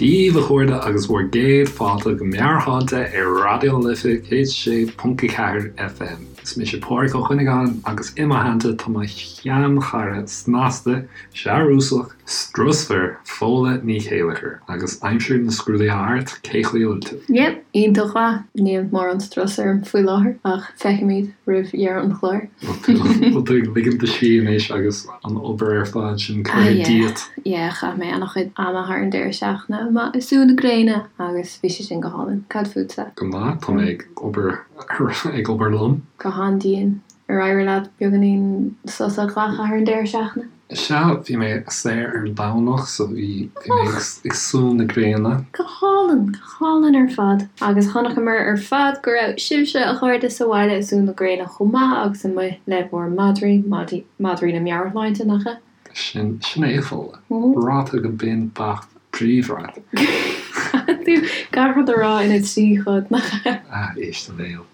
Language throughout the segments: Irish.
Dia daoibh a chairde agus bhur gcéad fáilte go Meabhairshláinte ar Raidió na Life 106.4 FM. Is mise Pádraig Ó Cuinneagáin agus i mo theannta tá mo sheanchara snasta, searúsach, strusmhar, Fódhla Ní Chéilleachair. Agus aimsir na scrúduithe thart, cé chaoi a bhfuil tú? Yep, iontach mhaith. Níl mórán strus orm faoi láthair ach feicfimid roimh dheireadh an chláir. Bhfuil tú ag ligean do scíth anois agus an obair ar fad sin curtha díot? Yeah, chaith mé an-chuid ama thar an deireadh seachtaine amuigh ag sú na gréine agus bhí sé sin go hálainn. Cad fútsa? Go maith, tá mé ag obair ag obair liom. Go han-dian. Ar éirigh leat beagáinín sos a ghlacadh thar an deireadh seachtaine? Sea, bhí mé saor ar an Domhnach so bhí mé ag sú na gréine. Go hálainn, go hálainn ar fad. Agus chonaiceamar ar fad go raibh sibhse, a chairde, sa bhaile ag sú na gréine chomh maith agus amuigh le bhur madraí, madraí na meabhairshláinte, nach ea? Sin, sin é, a Fódhla. Ráite go binn beacht bríomhar agat. Caithfidh tú gach rud a rá ina thrí chuid, nach ea? Ah, éist do bhéal.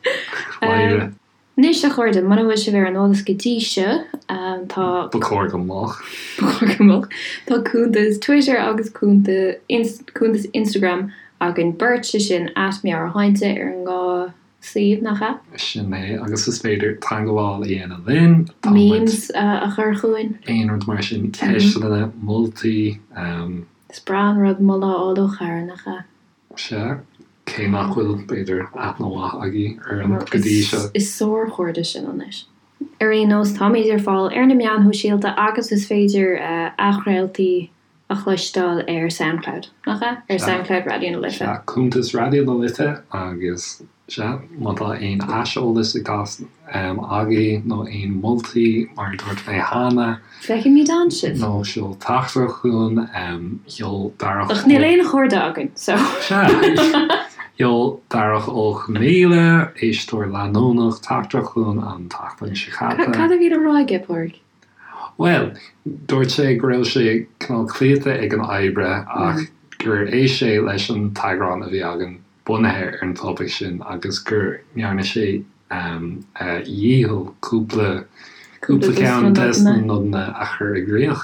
Mháire. Anois, a chairde, muna bhfuil sibh ar an eolas go dtí seo, tá. Ba chóir go mbeadh. Ba chóir go mbeadh. Tá cuntas Twitter agus cuntas Instagram againn beirt, sé sin at meabhairshláinte ar an dhá suíomh, nach ea? Sin é, agus is féidir teagmháil a dhéanamh linn. Tá muid. Memes a chur chugainn. Aon rud mar sin, ceisteanna, moltaí. Is breá an rud moladh a fháil ó chara, nach ea? Sea, cé nach bhfuil, b'fhéidir, aithne mhaith agaibh orainn go dtí seo. Is sárchairde sinn anois. Ar aon nós, táimid ar fáil ar na meáin shóisialta agus is féidir athchraoltaí a chloisteáil ar Soundcloud, nach ea? Ar Soundcloud Raidió na Life. Sea, cuntas Raidió na Life agus, sea, má tá aon aiseolas ag teastáil agaibh nó aon moltaí, mar a dúirt mé cheana. Feicfimid ann sibh. Nó seol teachtaireacht chugainn, sheol Darach Ach níl aon chairde againn, so. Sea, sheol Darach Ó Conghaile, éisteoir leanúnach, teachtaireacht chugainn an tseachtain seo caite. Cad a bhí le rá aige, Pádraig? Bhuel, dúirt sé go raibh sé cineál cloíte ag an oibre ach gur éist sé leis an t-eagrán a bhí againn bunaithe ar an topaic sin agus go ndearna sé a dhícheall cúpla cúpla ceann des na nodanna a chur i gcrích.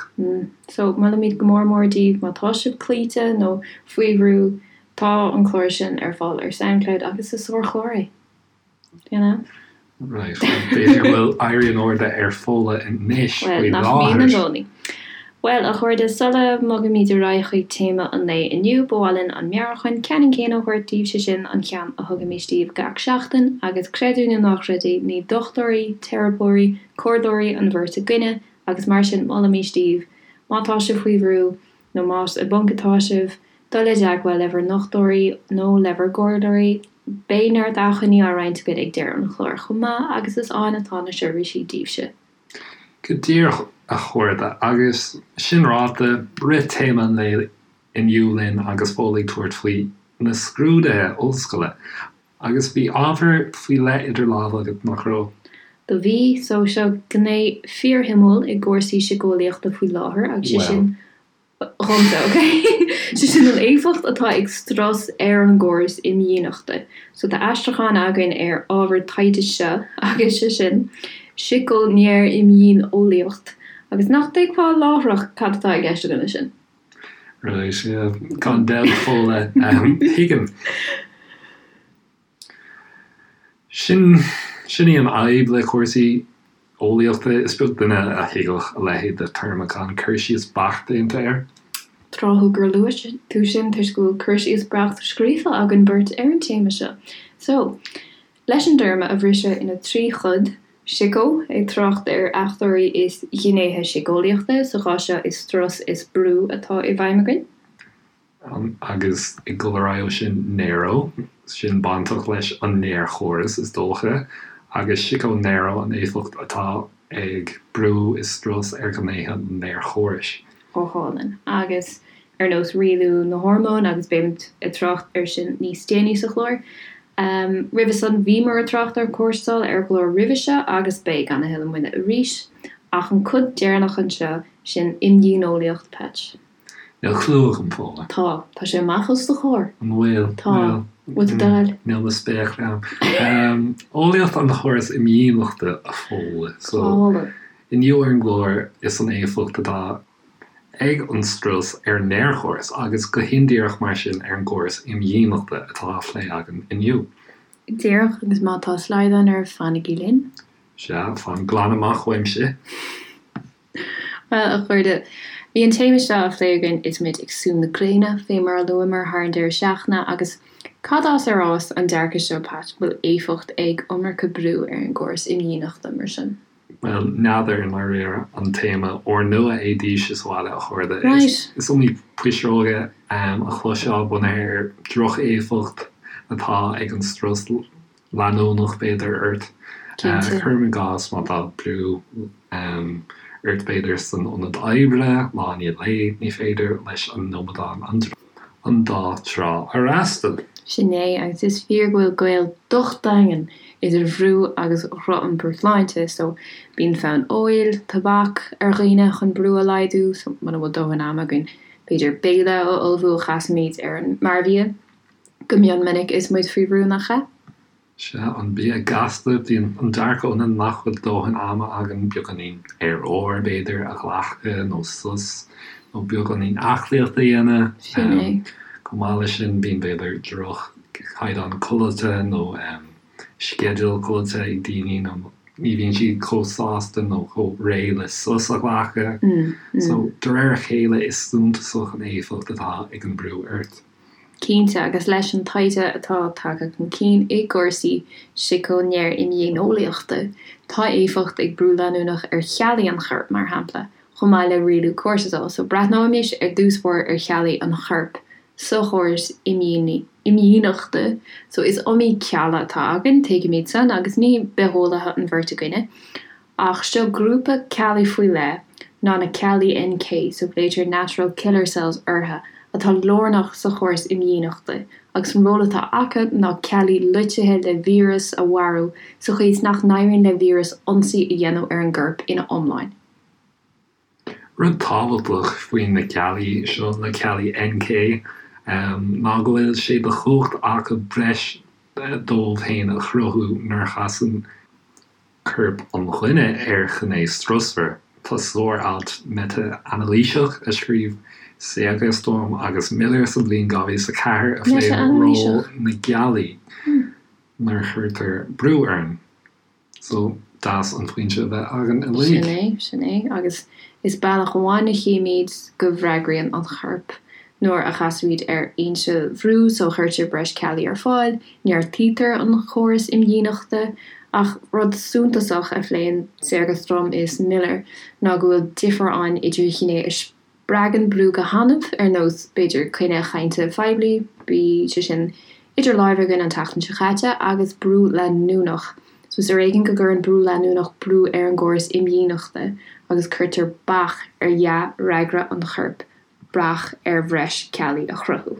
So, molaimid go mór mór daoibh má tá sibh cloíte nó faoi bhrú, tá an clár sin ar fáil ar Soundcloud agus is sárchlár é. You know? Right, b'fhéidir go bhfuil éirí in airde ar Fódhla anois faoi láthair. Bhuel, nach mbíonn i gcónaí. Bhuel, a chairde, sula mbogaimid ar aghaidh chuig téama an lae inniu, ba mhaith linn an meabhrúchán ceannann céanna a thabhairt daoibh, sé sin, an ceann a thugaimis daoibh gach seachtain, agus creid é nó ná creid é, ní dochtúirí, teiripeoirí, comhairleoirí an bheirt againne, agus mar sin, molaimis daoibh, má tá sibh faoi bhrú, nó más i bponc atá sibh, dul i dteagmháil le bhur ndochtúirí nó le bhur gcomhairleoirí. Beidh neart acmhainní á roinnt againn ag deireadh an chláir chomh maith agus is ann atá na seirbhísí daoibhse. Go díreach, a chairde, agus sin ráite, rith téama an lae inniu linn agus Fódhla ag tabhairt faoi na scrúduithe ollscoile. Agus bhí ábhar faoi leith idir lámha agat, nach raibh? Do bhí. So, seo gné fíorshuimiúil i gcúrsaí síceolaíochta faoi láthair agus sé sin, dhomsa, ok? Sé sin an éifeacht atá ag strus ar an gcóras imdhíonachta. So, tá aistriúchán againn ar ábhar taighde seo agus sé sin, sícinéirimdhíoneolaíocht. Agus nach dtuigfeá láithreach cad atá i gceist againn leis sin? Right, yeah. Gan dabht, Fódhla. Tuigim. Sin, sin í an fhadhb le cúrsaí eolaíochta, is beag duine a thuigfeadh a leithéid de théarma gan cur síos beacht déanta air. Tráthúil gur luaigh tú sin toisc go bhfuil cur síos beacht scríofa againn beirt ar an téama seo. So, Leis an dtéarma a bhriseadh ina thrí chuid, sico, ag trácht ar fhachtóirí is gnéithe síceolaíochta, sa chás seo is strus is brú atá i bhfeidhm againn. Agus ag dul ar aghaidh ó sin, neuro, sin bainteach leis an néarchóras is dócha, agus sico-neuro an éifeacht atá ag brú is strus ar ghnéithe an néarchórais. Go hálainn. Agus ar nós rialú na hormón agus beimid ag trácht air sin níos déanaí sa chlár. Roimhe san bhíomar ag trácht ar cortisol ar an gclár roimhe seo agus beidh gan a thuilleadh moille arís. Ach an cuid deireanach anseo, sin imdhíoneolaíocht, Patch. Níl clue agam, Fódhla. Tá. Tá sé amach os do chomhair. An bhfuil? Tá. Bhfuil tú dall? Níl mo spéaclaí agam. Eolaíocht an chórais imdhíonachta, a Fódhla. So, inniu ar an gclár is an éifeacht atá. ag an strus ar an néarchóras agus go hindíreach mar sin ar an gcóras imdhíonachta atá á phlé againn inniu. Díreach, agus má tá slaghdán oraibh, fanaigí linn. Sea, fan glan amach uaimse. Bhuel, a chairde, bhí an téama seo á phlé againn is muid ag sú na gréine, fé mar a luamar thar an deireadh seachtaine, agus cad as ar fhás an dearcadh seo, Pat, go bhfuil éifeacht ag iomarca brú ar an gcóras imdhíonachta, mar sin? Bhuel, n'fheadar i ndáiríre an téama úrnua é daoibhse sa bhaile, a chairde. Right. Is iomaí pisreoga a chloisfeá bunaithe ar droch-éifeacht atá ag an strus leanúnach, b'fhéidir, ort. Cinnte. Cuirim i gcás má tá brú ort, b'fhéidir, san ionad oibre, lá i ndiaidh lae, ní féidir leis an amadán an dá trá a fhreastal. Sin é, agus is fíor go bhfuil gaol docht daingean idir bhrú agus dhroch-iompar sláinte, so bíonn fonn óil, tobac ar dhaoine chun brú a laghdú, so muna bhfuil dóthain ama againn, b'fhéidir béile a ullmhú a chasaimid ar an mearbhia go mion minic is muid faoi bhrú, nach ea? Sea, an bia gasta, bíonn an dearcadh ionainn nach bhfuil dóthain ama againn beagáinín aer úr, b'fhéidir, a ghlacadh nó sos nó beagáinín aclaíochta a dhéanamh. Sin é. Chomh maith leis sin, bíonn, b'fhéidir, droch-chaighdeán codlata nó sceideal codlata ag daoine nó ní bhíonn siad chomh sásta nó chomh réidh le sos a ghlacadh. So, de réir a chéile, is suntasach an éifeacht atá ag an brú ort. Cinnte, agus leis an taighde atá tagtha chun cinn i gcúrsaí siceo-néar-imdhíoneolaíochta, tá éifeacht ag brú leanúnach ar cheallaí an choirp, mar shampla, chomh maith le rialú cortisol. So, breathnóimis ar dtús báire ar cheallaí an choirp sa chóras imdhíonachta. So, is iomaí cealla atá againn, tuigimid san, agus ní bitheolaithe an bheirt againne. Ach seo grúpa ceallaí faoi leith ná na ceallaí NK, so glaoitear natural killer cells orthu, atá lárnach sa chóras imdhíonachta, agus an ról atá acu ná ceallaí loitithe le víreas a mharú sa chaoi is nach n-éiríonn le víreas ionsaí a dhéanamh ar an gcorp ina iomláine. Rud tábhachtach faoi na ceallaí seo, na ceallaí NK, ná go bhfuil sé de chumhacht acu breis dóibh féin a chruthú nuair a chasann corp an dhuine ar ghné strusmhar. Tá sár-alt meitea-anailíseach a scríobh Segerstrom agus Miller sa bhliain 2004 a phléann ról na gceallaí nuair a chuirtear brú orainn. So, deas an foinse a bheith againn uilig. Sin é, sin é. Agus is bealach amháin a chímid go bhfreagraíonn an corp nuair a chasaimid ar fhoinse bhrú, so cuirtear breis ceallaí ar fáil, neartaítear an córas imdhíonachta. Ach rud suntasach a phléann Segerstrom is Miller ná go bhfuil difear ann idir ghné a spreagann brú go hannamh, ar nós, b'fhéidir, coinne chainte phoiblí, bhí sé sin idir láimhe againn an tseachtain seo caite, agus brú leanúnach. So is ar éigean go gcuireann brú leanúnach brú ar an gcóras imdhíonachta agus cuirtear bac ar dhea-fhreagra an choirp bac ar bhreis ceallaí a chruthú.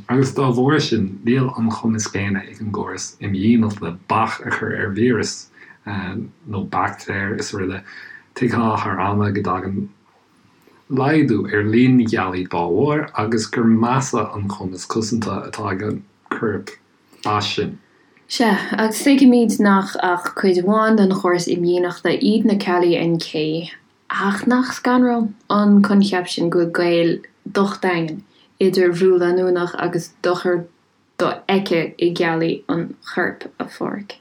Agus dá bharr sin, níl an cumas céanna ag an gcóras imdhíonachta bac a chur ar víreas nó baictéir is araile. Tuigfeá thar ama go dtagann laghdú ar líon na gceallaí dá bharr agus gur measa an cumas cosanta atá ag an corp as sin. Sea, agus tuigimid nach ach cuid amháin den chóras imdhíonachta iad na ceallaí NK, Ach nach scanrúil an coincheap sin go bhfuil gaol docht daingean idir bhrú leanúnach agus dochar dofheicthe i gceallaí an choirp, a Pháraic?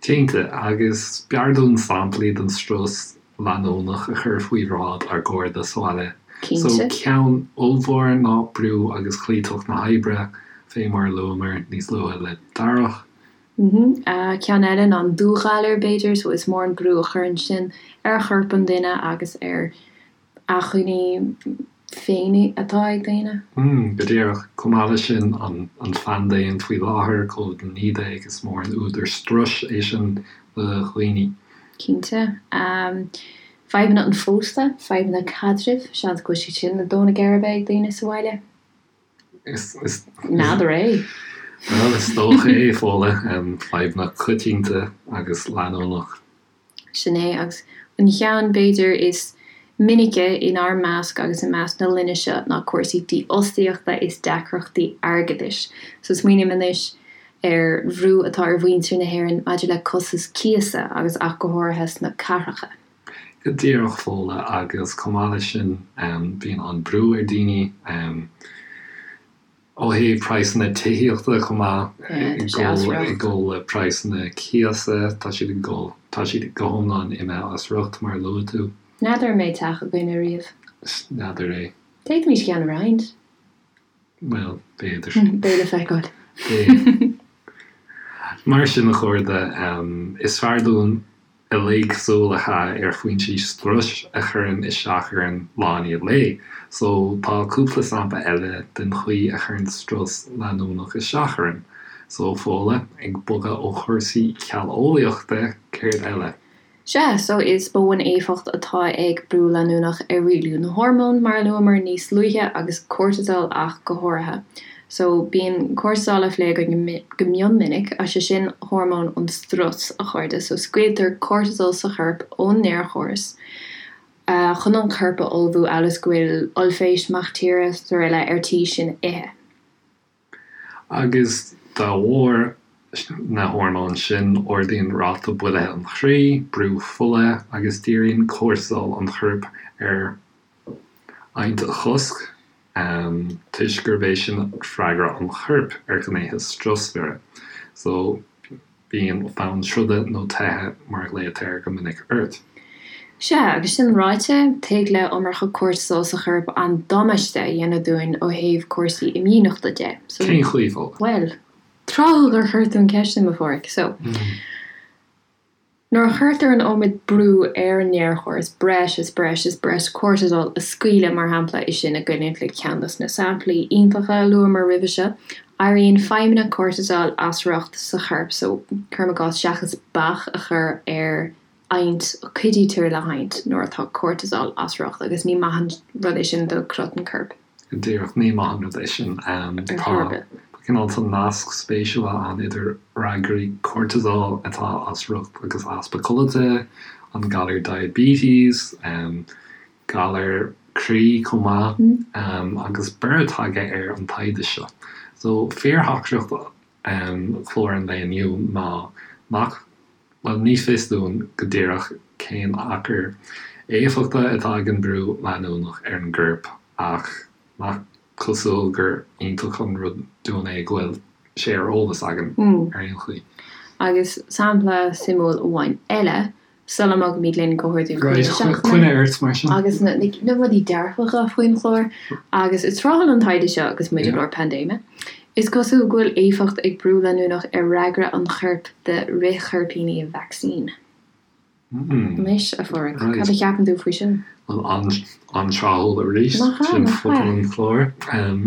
Cinnte, agus b'fhearr dúinn samplaí den strus leanúnach a chur faoi bhráid ár gcairde sa bhaile. So, Cinnte. ceann ollmhór ná brú agus cloíteacht na hoibre, fé mar a luamar níos luaithe le Darach. Ceann eile ná an dúghalar, b'fhéidir, so is mór an brú a chuireann sin ar chorp an duine agus ar acmhainní féin atá ag daoine. Go díreach. Chomh maith leis sin, an phaindéim faoi láthair, Covid-19, is mór an údar struis é sin do dhaoine. Cinnte. Fadhbanna an phósta, fadhbanna caidrimh, seans go bhfuil siad sin ag dó na geirbe ag daoine sa bhaile. N'fheadar é. Bhuel, is dócha é, Fódhla. Fadhbanna coitianta agus leanúnach. Sin é, agus an cheann, b'fhéidir, is minice inár measc agus i measc na linne seo ná cúrsaí dífhostaíochta is deacrachtaí airgeadais. So smaoiním anois ar bhrú atá ar mhuintir na hÉireann maidir le costas cíosa agus ach go háirithe sna cathracha. Go díreach Fódhla agus chomh maith leis sin bíonn an brú ar daoine ó thaobh praghsanna tithíochta chomh maith ag dul le praghsanna cíosa, tá siad ag dul, tá siad go hiomlán imithe as riocht mar a luaigh tú. N'fheadar an mbeidh teach againn ariamh. N'fheadar é. D'fhéadfaimis ceann a roinnt. Bhuel, b'fhéidir. Beidh le feiceáil. Beidh. Mar sin, a chairde, is fearr dúinn uilig súil a chaitheamh ar foinsí struis a chuireann isteach orainn lá i ndiaidh lae. So, tá cúpla sampla eile den chaoi a chuireann strus leanúnach isteach orainn. So, Fódhla, ag bogadh ó chúrsaí cealleolaíochta, céard eile? Sea, so is mó an éifeacht atá ag brú leanúnach ar rialú na hormón, mar a luamar níos luaithe, agus cortisol ach go háirithe. So, bíonn cortisol á phlé againn go mion minic, is é sin hormón an strus, a chairde. So, scaoiltear cortisol sa chorp ón néarchóras chun an corp a ullmhú amhail is go bhfuil ollphéist, mac tíre, srl. ar tí sinn a ithe. Agus dá bharr na hormóin sin, ardaíonn ráta buailthe an chroí, brú fola agus díríonn cortisol an choirp ar adhaint a chosc, toisc gurb é sin freagra an choirp ar ghnéithe strusmhara. So. Bíonn fonn troda nó teithe, mar a ghlaotar air go minic, ort. Sea, agus sin ráite, tig le iomarca cortisol sa chorp an-damáiste a dhéanamh dúinn ó thaobh cúrsaí imdhíonachta de. So. Cén chaoi, Fódhla? Bhuel, tráthúil gur chuir tú an ceist sin, a Pháraic. So. Nuair a chuirtear an iomad brú ar an néarchóras, breis is breis is breis cortisol a scaoileadh, mar shampla, is sinn ag coinneáil le ceann dos na samplaí iontacha a luamar roimhe seo, Éiríonn feidhmeanna cortisol as riocht sa chorp so, cuirim i gcás, seachas bac a chur ar adhaint, cuidítear le hadhaint nuair atá cortisol as riocht agus ní maith an rud é sin do chrot an choirp. Go díreach, ní maith an rud é sin. Tá cineál tá nasc spéisiúil ann idir fhreagraí cortisol atá as riocht agus easpa codlata, an galar diabetes, galar croí chomh maith, agus borradh tagtha ar an taighde seo. So, fíortheachtaireacht chlár an lae inniu ná nach, bhuel, ní fios dúinn go díreach cén achar éifeachta atá ag an brú leanúnach ar an gcorp ach nach cosúil gur iontach an rud dúinn é go bhfuil sé ar eolas againn ar aon chaoi. Agus sampla suimiúil amháin eile, Sula mbogaimid linn go hordú Right, na seachtaine. Coinnigh ort mar sin. Agus na rudaí dearfacha faoin chlár. Agus is tráthúil an taighde seo agus muid i lár paindéime. Is cosúil go bhfuil éifeacht ag brú leanúnach ar fhreagra an choirp do fhrithchoirpíní vacsaín. Anois, a Pháraic, cad a cheapann tú faoi sin? Bhuel, an-tráthúil arís. Nach ea, Sin nach focal ea? an chláir.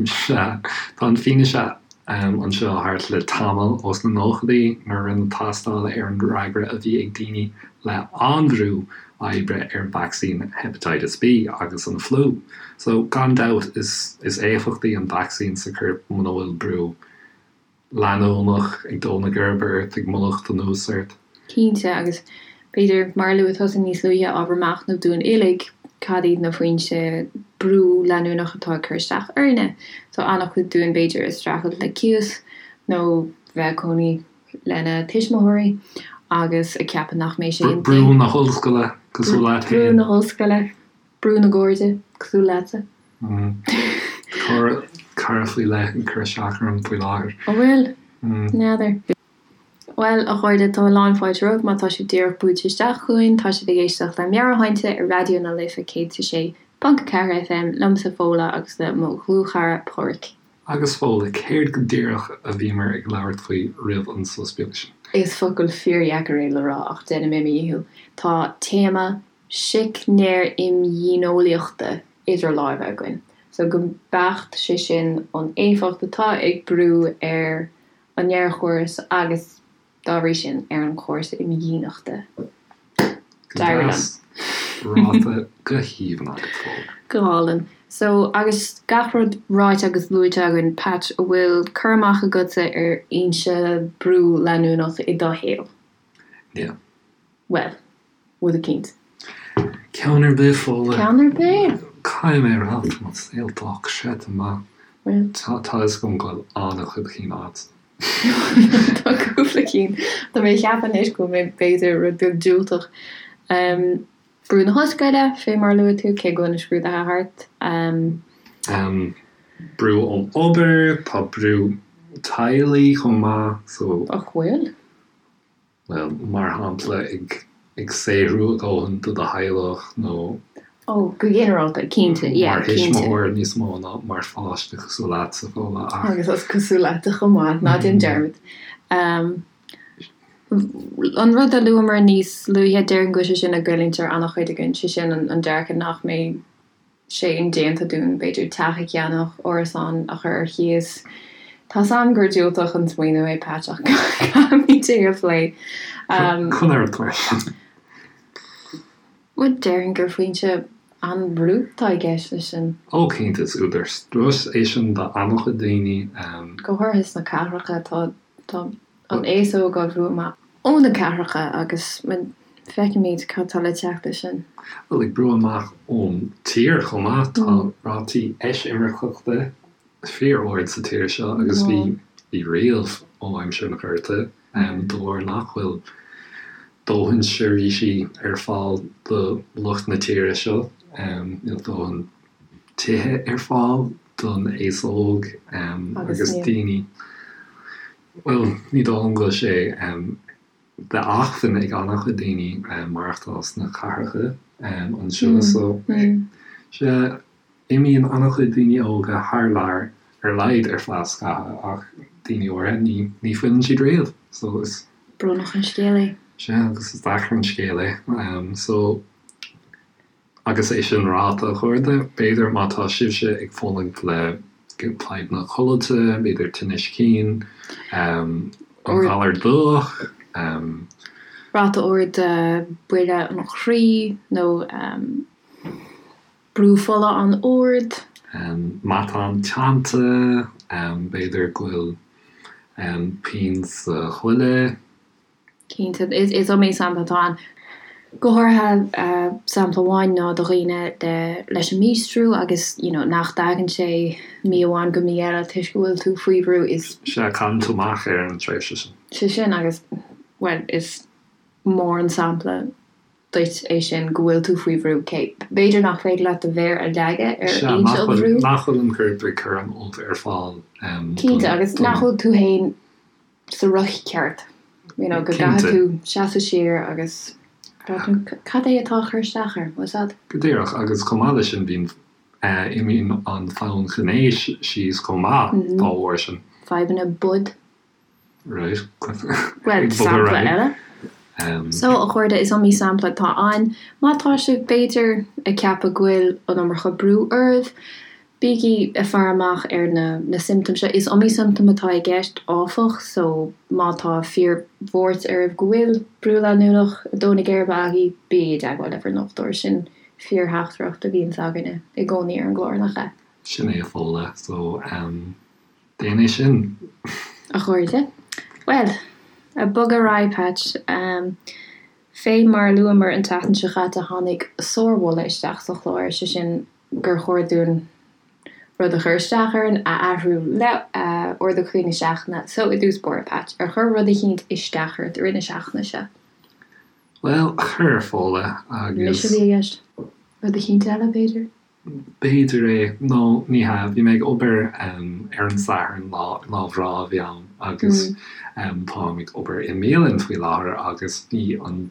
Sea, tá an fianaise anseo thart le tamall, ós na nóchaidí, nuair a rinneadh tástáil ar an fhreagra a bhí ag daoine le an-bhrú oibre ar vacsaín Hepatitis B agus an fliú. So, gan dabht, is is éifeachtaí an vacsaín sa chorp muna bhfuil brú leanúnach ag dó na geirbe ort, ag mallacht anuas ort. Cinnte, agus b'fhéidir, mar a luaigh tusa níos luaithe, ábhar machnaimh dúinn uilig, cad iad na foinse brú leanúnach atá ag cur isteach orainne? Tá an-chuid dúinn, b'fhéidir, ag streachailt le cíos nó bheith ag cónaí lena tuismitheoirí agus ag ceapadh nach mbeidh sé inti. Brú na hollscoile, cosúil leat féin. Brú na hollscoile, brú na gcairde, cosúil leatsa. Tá cara faoi leith ag cur isteach orm faoi láthair. An bhfuil? N'fheadar. Bhuel, a chairde, tá a lán fáilte romhaibh má tá sibh díreach buailte isteach chugainn. Tá sibh ag éisteacht le Meabhairshláinte ar Raidió na Life 106.4 FM, liomsa Fódhla agus le mo dhlúthchara Páraic. Agus Fódhla, céard go díreach a bhíomar ag labhairt faoi roimh an sos beag sin? Is focal fíordheacair é le rá ach déanfaidh mé mo dhícheall. Tá téama sícnéir-imdhíoneolaíochta idir láimhe againn. So go beacht, sé sin an éifeacht atá ag brú ar an néarchóras agus, dá bhrí sin, ar an chóras imdhíonachta. Go deas ráite go haoibhinn agat, Fódhla. Go hálainn. So, agus gach rud ráite agus luaite againn, Patch, an bhfuil cur amach agatsa ar fhoinse brú leanúnach i do shaol? Níl. Bhuel, rud eicínt. Ceann ar bith, Fódhla. Ceann ar bith? Caithfidh mé a rá, tá mo saol dochreidte maith. Bhuel. Tá a fhios agam go bhfuil an-chuid cinn agat. Tá cúpla cinn. Tá mé ag ceapadh anois go bhfuil mé b'fhéidir rud beag diúltach. Brú na hollscoile, fé mar a luaigh tú, cé go bhfuil na scrúduithe thart. Brú ón obair, tá brú teaghlaigh chomh maith, so. Ach bhfuil? Bhuel, mar shampla, ag saothrú a dhóthain do do theaghlach nó. Ó, go ginearálta, cinnte, yeah, cinnte. Mar thuismitheoir níos mó ná mar pháiste cosúil leatsa, Fódhla, ach. Agus is cosúil leatsa chomh maith, ná déan dearmad. An rud a luamar níos luaithe, déarfainn go bhfuil sé sin ag goilliúint ar an-chuid againn, sé sin an dearcadh nach mbeidh sé indéanta dúinn, b'fhéidir, teach a cheannach, árasán a chur ar cíos. Tá's a'm gur diúltach an smaoineamh é, Patch, ach caithfimid é a phlé. Conair leis. Bhuel, déarfainn gur foinse an-bhrú atá i gceist leis sin. Ó, cinnte, is údar struis é sin do an-chuid daoine. Go háirithe sna cathracha, tá, tá an aos óg á bhrú amach ó na cathracha agus feicimid cad tá le teacht leis sin. Bhuel, ag brú amach ón tír chomh maith, tá rátaí eisimirceachta fíor-ard sa tír seo agus bhí, bhí riamh ó aimsir an Ghorta, de bharr nach bhfuil dóthain seirbhísí ar fáil do lucht na tíre seo, níl dóthain tithe ar fáil don aos óg agus daoine, bhuel, ní dóigh liom go bhfuil sé d'acmhainn ag an-chuid daoine maireachtáil sna cathracha anseo so, sea, imíonn an-chuid daoine óga thar lear ar a laghad ar feadh scaitheamh ach daoine áirithe ní, ní fhilleann siad riamh so is. Brónach an scéal é. Sea, agus is deacair an scéal é. So. Agus é sin ráite, a chairde, b'fhéidir má tá sibhse ag fulaingt le fadhbanna codlata, b'fhéidir tinnis cinn, an galar dubhach. Ráta ard buille an chroí nó brú fola an-ard. Matán teannta, b'fhéidir go bhfuil pian sa ghoile. Cinnte, is iomaí sampla atá ann. Go háirithe, sampla amháin ná do dhaoine leis an míostrú agus you know nach dtagann sé mí amháin go mí eile toisc go bhfuil tú faoi bhrú is. Sea, cailleann tú amach ar an tréimhse sin. Sé sin agus, bhuel, is mór an sampla duit é sin go bhfuil tú faoi bhrú. Cé, b'fhéidir nach féidir leat do mhéar a leagadh ar Sea, fhoinse nach an bhfuil, bhrú. nach bhfuil an corp ag cur an ubh ar fáil don, Cinnte, agus nach bhfuil tú féin sa riocht ceart, you know, go gcaithfidh tú seasamh siar agus breathnú cad é atá ag cur isteach orm, what's that? Go díreach, agus chomh maith leis sin bíonn, imíonn an fonn gnéis síos chomh maith dá bharr sin. Fadhbanna boid. Right. Bhuel, sampla eile. So, a chairde, is iomaí sampla atá ann. Má tá sibh, b'fhéidir, ag ceapadh go bhfuil an iomarca brú oraibh, Bígí ag faire amach ar na na siomptóim seo. Is iomaí siomptóm atá i gceist, áfach, so má tá fíor-bhuairt oraibh go bhfuil brú leanúnach ag dó na geirbe agaibh, bígí i dteagmháil le bhur ndochtúir. Sin fíor-theachtaireacht a bhíonns againne i gcónaí ar an gclár, nach ea? Sin é a Fódhla, so déan é sin. A chairde, bhuel, ag bogadh ar aghaidh, Patch. Fé mar a luamar an tseachtain seo chaite, tháinig sármholadh isteach sa chlár, sé sin, gur chóir dúinn rud a chuir isteach orainn a athrú le ardú croí na seachtaine. So, i dtús báire, Patch, ar chuir rud eicínt isteach ort i rith na seachtaine seo? Bhuel, chuir, a Fódhla, agus. Mise a bhí i gceist. Rud eicínt eile, b'fhéidir? B'fhéidir é, nó ní hea, bhí mé ag obair ar an Satharn, lá, lá breá a bhí ann, agus táim ag obair i mbialann faoi láthair agus bhí an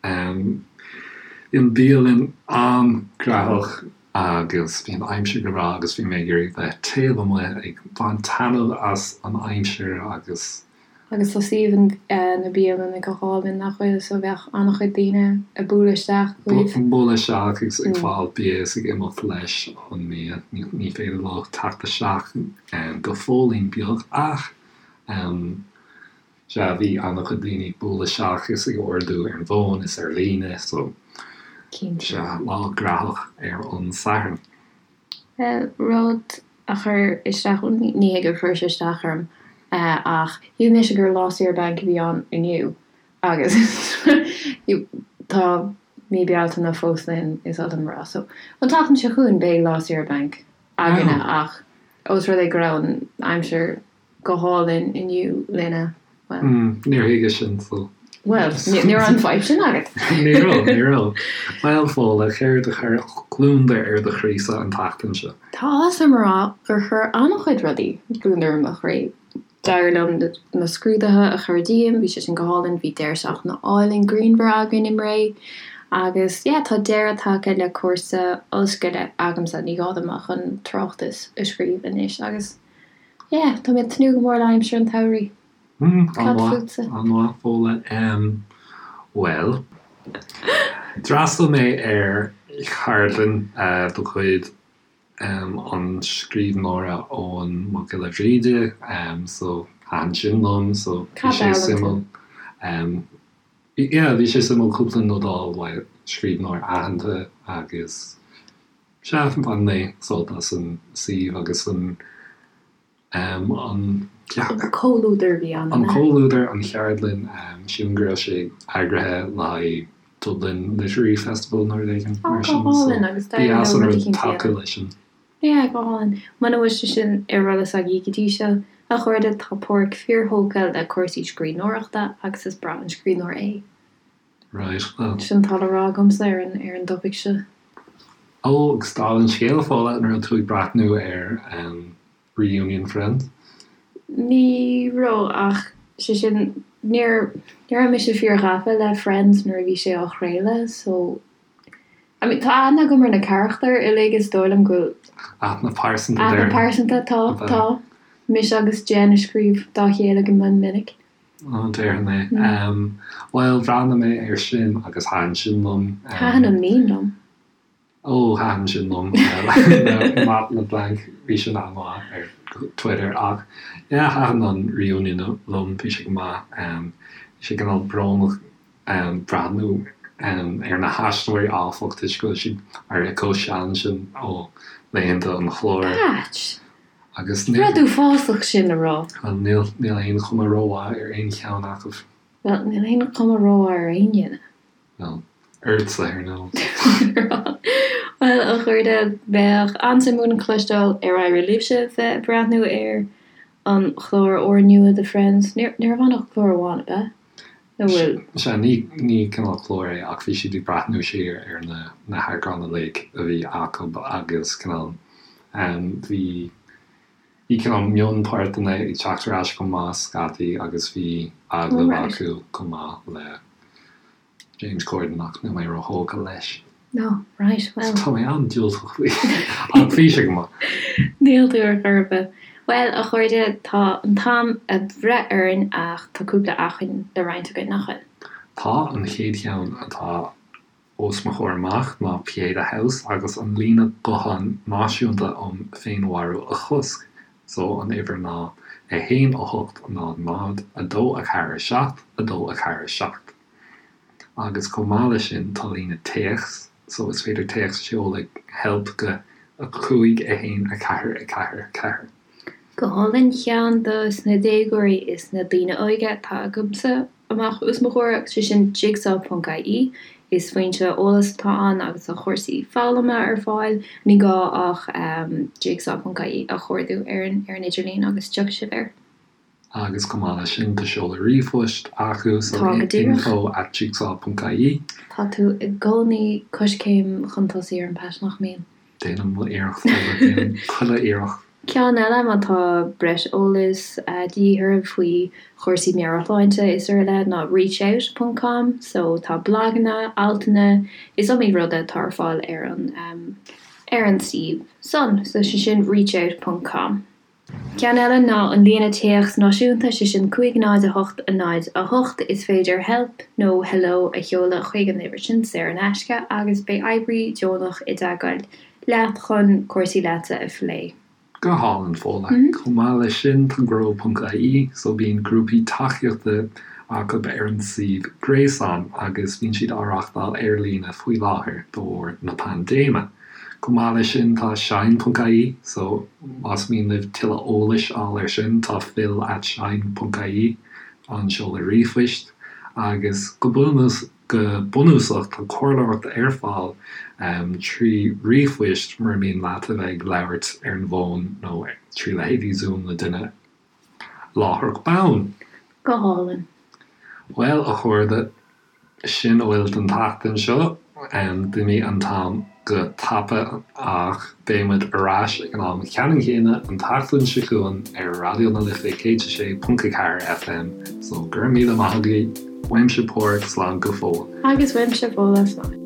Bhí an bhialann an-ghnóthach agus bhí an aimsir go breá agus bhí mé ag iarraidh bheith taobh amuigh ag baint taitneamh as an aimsir agus. Agus tá suíomh na bialainne go hálainn, nach bhfuil? So bheadh an-chuid daoine ag bualadh isteach chugaibh. Ag bualadh isteach agus ag fáil bia is ag imeacht leis an mbia. Ní féidir leo teacht isteach go fóillín beag ach. Sea, bhí an-chuid daoine ag bualadh isteach is ag ordú ar an bhfón is ar líne, so Cinnte. sea, lá graitheach ar an Satharn. Bhuel, rud a chuir isteach, bhuel, ní hé gur chuir sé isteach orm, ach shíl mise gur lá saoire bainc a bhí ann inniu agus tá mí Bealtaine fós linn, is oth liom a rá. So, an tseachtain seo chugainn beidh lá saoire bainc againne ach ós rud é go raibh an aimsir go hálainn inniu linne, bhuel. Níor thuigeas sin, so. Bhuel, ní raibh an fadhb sin agat. Ní raibh, ní raibh. Bhuel, Fódhla, céard a chuir gliondar ar do chroísa an tseachtain seo? Tá áthas orm a rá gur chuir an-chuid rudaí gliondar ar mo chroí. D'éirigh liom na scrúduithe a chur díom, bhí sé sin go hálainn, bhí deireadh seachtaine álainn grianmhar againn i mBré agus yeah tá deireadh tagtha le cúrsa ollscoile agamsa, ní gá dom ach an tráchtas a scríobh anois agus yeah tá mé ag tnúth go mór le aimsir an tsamhraidh. Cad fútsa? An-mhaith, Fódhla. Bhuel, d'fhreastail mé ar cheardlann de chuid an scríbhneora Eoghan Mac Giolla Bhríde, so thaitin sin liom, so bhí sé suimiúil. Yeah, bhí sé suimiúil cúpla nod a fháil uaidh scríbhneoir aitheanta agus sea, bhain mé sult as an suíomh agus an An comhluadar a bhí ann, an comhluadar, an cheardlann, sílim go raibh sé eagraithe le haghaidh Dublin Literary Festival nó rud éigin mar sin. Go hálainn agus ba dheas an rud tacú leis sin. Yeah, go hálainn. Muna bhfuil sé sin ar eolas agaibh go dtí seo, a chairde, tá Páraic fíorthógtha le cúrsaí scríbhneoireachta agus is breá an scríbhneoir é. Right, well. Sin atá le rá agamsa ar an ar an dtopaic seo. Ó, agus dála an scéil, Fódhla, an raibh tú ag breathnú ar Reunion Friends? Ní raibh, ach sé sin, níor, ní raibh mise fíor-ghafa le Friends nuair a bhí sé á chraoladh, so, I mean, tá aithne agam ar na carachtair uilig, is dóigh liom go bhfuil. Aithne pearsanta, Aithne pearsanta, tá, tá. Mise agus Jen ag scríobh dá chéile go mion minic. Ó, déarfainn é. Bhuel, bhreathnaigh mé air sin agus thaitin sin liom. Thaitin an meme liom. Ó, thaitin sin liom. Matt LeBlanc, bhí sin an-mhaith ar Twitter ach yeah, thaitin an reunion liom, bhí sé go maith. Bhí sé cineál brónach breathnú ar na haisteoirí áfach toisc go bhfuil siad éirithe chomh sean sin ó laethanta an chláir. Patch! Agus níl. Rud uafásach sin a rá. Bhuel, níl, níl aon chuma rómhaith ar aon cheann acu. Bhuel, níl aon chuma rómhaith ar aon duine. Bhuel, ortsa, ar ndóigh. Bhuel, a chairde, bheadh an-suim againn cloisteáil ar éirigh libhse bheith ag breathnú ar an chlár úrnua de Friends. Ní raibh ann ach clár amháin, ab ea? Nó bhfuil? Sea, ní, ní cineál clár é ach bhí siad ag breathnú siar ar na, na heagráin uilig a bhí acu agus cineál, bhí, bhí cineál mionpháirteanna ag teacht ar ais chomh maith scaití agus bhí agallamh acu chomh maith le James Corden ach níl mé róthógtha leis. No, right, well. Tá mé an-diúltach faoi. Ach bhí sé go maith. Níl tú ar chor ar bith. Bhuel, a chairde, tá an t-am ag breith orainn ach tá cúpla acmhainn le roinnt againn, nach bhfuil? Tá, an chéad cheann atá os mo chomhair amach ná Pieta House agus an líne gutháin náisiúnta um féinmharú a chosc. So, an uimhir ná 1 8 0 0 2 4 7 2 4 7. Agus chomh maith leis sin tá líne téacs, so is féidir téacs a sheoladh help go 5 1 4 4 4. Go hálainn, ceann dos na déagóirí is na daoine óige atá agamsa amach os mo chomhair agus sé sin jigsaw ponc ie. Is foinse eolais atá ann agus tá cúrsaí foghlama ar fáil. Ní gá ach jigsaw ponc ie a chuardú ar an ar an idirlíon agus tiocfaidh sibh air. Agus chomh maith leis sin tá seoladh ríomhphoist acu so Tá, go díreach. info at jigsaw ponc ie. Tá tú i gcónaí coiscéim chun tosaigh orm Pat, nach mbíonn? Déanaim mo iarracht, déanaim chuile iarracht. Ceann eile, má tá breis eolais de dhíth oraibh faoi chúrsaí meabhairshláinte is araile ná reachout ponc com so tá blaganna, altanna, is iomaí rud atá ar fáil ar an ar an suíomh san. So sé sin reachout ponc com. Ceann eile ná an líne téacs náisiúnta, sé sin 5 0 8 0 8. Is féidir help nó hello a sheoladh chuig an uimhir sin saor in aisce agus beidh oibrí deonach i dteagmháil leat chun cúrsaí leatsa a phlé. Go hálainn, Fódhla. Chomh maith leis sin, tá grow ponc ie, so bíonn grúpaí tacaíochta acu ar an suíomh gréasáin agus bíonn siad á reachtáil ar líne faoi láthair de bharr na paindéime. Chomh maith leis sin tá shine ponc ie so más mian libh tuilleadh eolais a fháil ar sin tá phil at shine ponc ie an seoladh ríomhphoist agus go go bunúsach tá comhairleoireacht ar fáil trí ríomhphoist mura mian leat a bheith ag labhairt ar an bhfón nó trí leithéidí Zoom le duine láithreach bonn. Go hálainn. Bhuel, a chairde, sin a bhfuil don tseachtain seo. D'imigh an t-am go tapa ach beidh muid ar ais ag an am ceannann céanna an tseachtain seo chugainn ar Raidió na Life 106.4 FM. So, go raibh míle maith agaibh. Uaimse Páraic, slán go fóill. Agus uaimse Fódhla, slán.